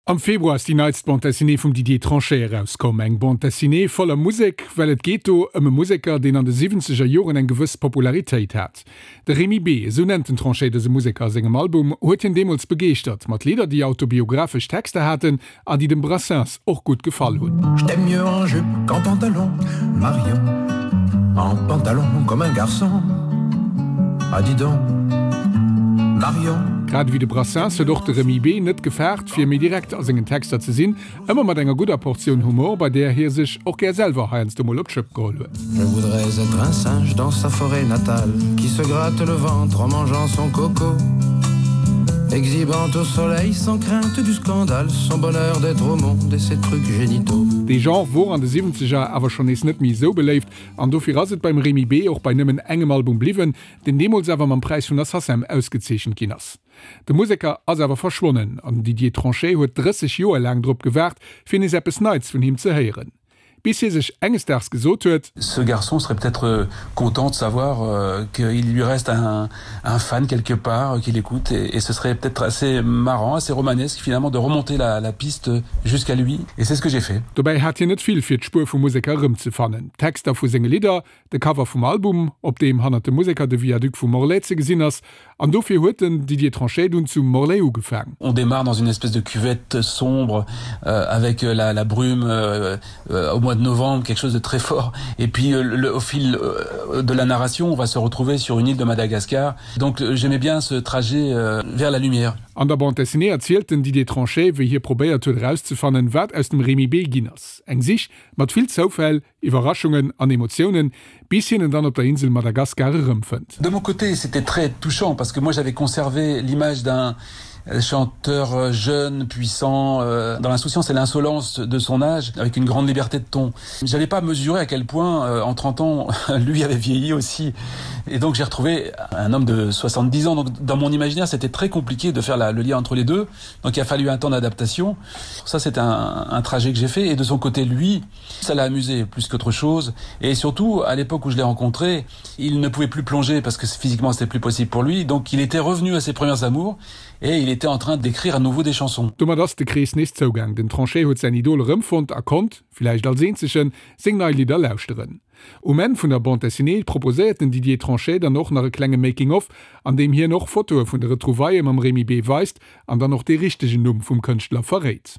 Am Februar ass déi neitst Bande Dessinée vum Didier Tranchet erauskomm. Eng Bande Dessinée voller Musek, well et geet do ëm e Museker, deen an de siwwenzeger Joren eng gewëss Popularitéit hat. De Remy B, esou nennt den Tranchet dëse Museker a sengem Album, huet hien deemools begeeschtert mat Lidder, déi autobiographesch Texter haten an déi dem Brassens och gutt gefall hunn. Je t'aime mieux en jupe qu'en pantalon, Marion, en pantalon comme un garçon, ah dis donc, Marion. Grad ewéi de Brassens huet och de Remy B net gefaart, fir méi direkt a sengen Texter ze sinn, ëmmer mat enger gudder Portioun Humor, bei där hie sech och gär selwer heiansdo mol op d'Schëpp geholl huet. Je voudrais être un singe dans sa forêt natale Qui se gratte le ventre en mangeant son coco Exhibant au soleil sans crainte du scandale Son bonheur d'être au monde et ses trucs génitaux. Dee Genre wor an de Siwwenzeger awer schonn nees net méi esou beléift an dofir ass et beim Remy B och bei nëmmen engem Album bliwwen, deen deemools awer mam Präis vun der SACEM ausgezeechent ginn ass. De Museker ass awer verschwonnen an den Didier Tranchet huet 30 Joer laang drop gewaart, fir nees eppes Neits vun him ze héieren. Bis hie sech enges Daags gesot huet. Ce garçon serait peut-être content de savoir qu'il lui reste un un fan quelque part qui l'écoute et, et ce serait peut-être assez marrant, assez romanesque finalement de remonter la, la piste jusqu'à lui et c'est ce que j'ai fait. Dobäi hat hien net vill fir d'Spuer vum Museker erëmzefannen, d'Texter vu senge Lidder, de Cover vum Album, op deem hannert dem Museker de Viaduc vu Morlaix ze gesinn ass, an dofir huet den Didier Tranchet dunn zu Morlaix ugefaang. On démarre dans une espèce de cuvette sombre euh, avec euh, la, la brume euh, euh, au mois de novembre, quelque chose de très fort. Et puis euh, le, au fil euh, de la narration, on va se retrouver sur une île de Madagascar. Donc euh, j'aimais bien ce trajet euh, vers la lumière. An der Bande dessinée erzielt den Didier Tranchet, wéi hie probéiert huet erauszefannen, wat aus dem Remy B. ginn ass. Eng Sich mat vill Zoufäll, Iwwerraschungen an Emotiounen, bis hien en dann op der Insel Madagaskar erëmfënnt. De mon côté, c'était très touchant parce que moi j'avais conservé l'image d'un chanteur euh, jeune, puissant, euh, dans l'insouciance et l'insolence de son âge, avec une grande liberté de ton. J'avais pas mesuré à quel point euh, en 30 ans lui avait vieilli aussi. Et donc j'ai retrouvé un homme de 70 ans. Donc dans mon imaginaire, c'était très compliqué de faire la, le lien entre les deux. Donc il a fallu un temps d'adaptation. Ça c'est un, un trajet que j'ai fait et de son côté lui, ça l'a amusé plus qu'autre chose et surtout à l'époque où je l'ai rencontré, il ne pouvait plus plonger parce que physiquement c'était plus possible pour lui donc il était revenu à ses premières amours et il était en train d'écrire à nouveau des chansons. Domat ass de Krees nees zougaang, den Tranchet huet säin Idol erëmfonnt a konnt, villäicht als eenzegen, seng nei Lidder lauschteren. Um Enn vun der Bande dessinée proposéiert den Didier Tranchet dann och nach e klenge Making of, an deem hien och Fotoe vun de Retrouvaillë mam Remy B. weist an dann och dee richtegen Numm vum Kënschtler verréit.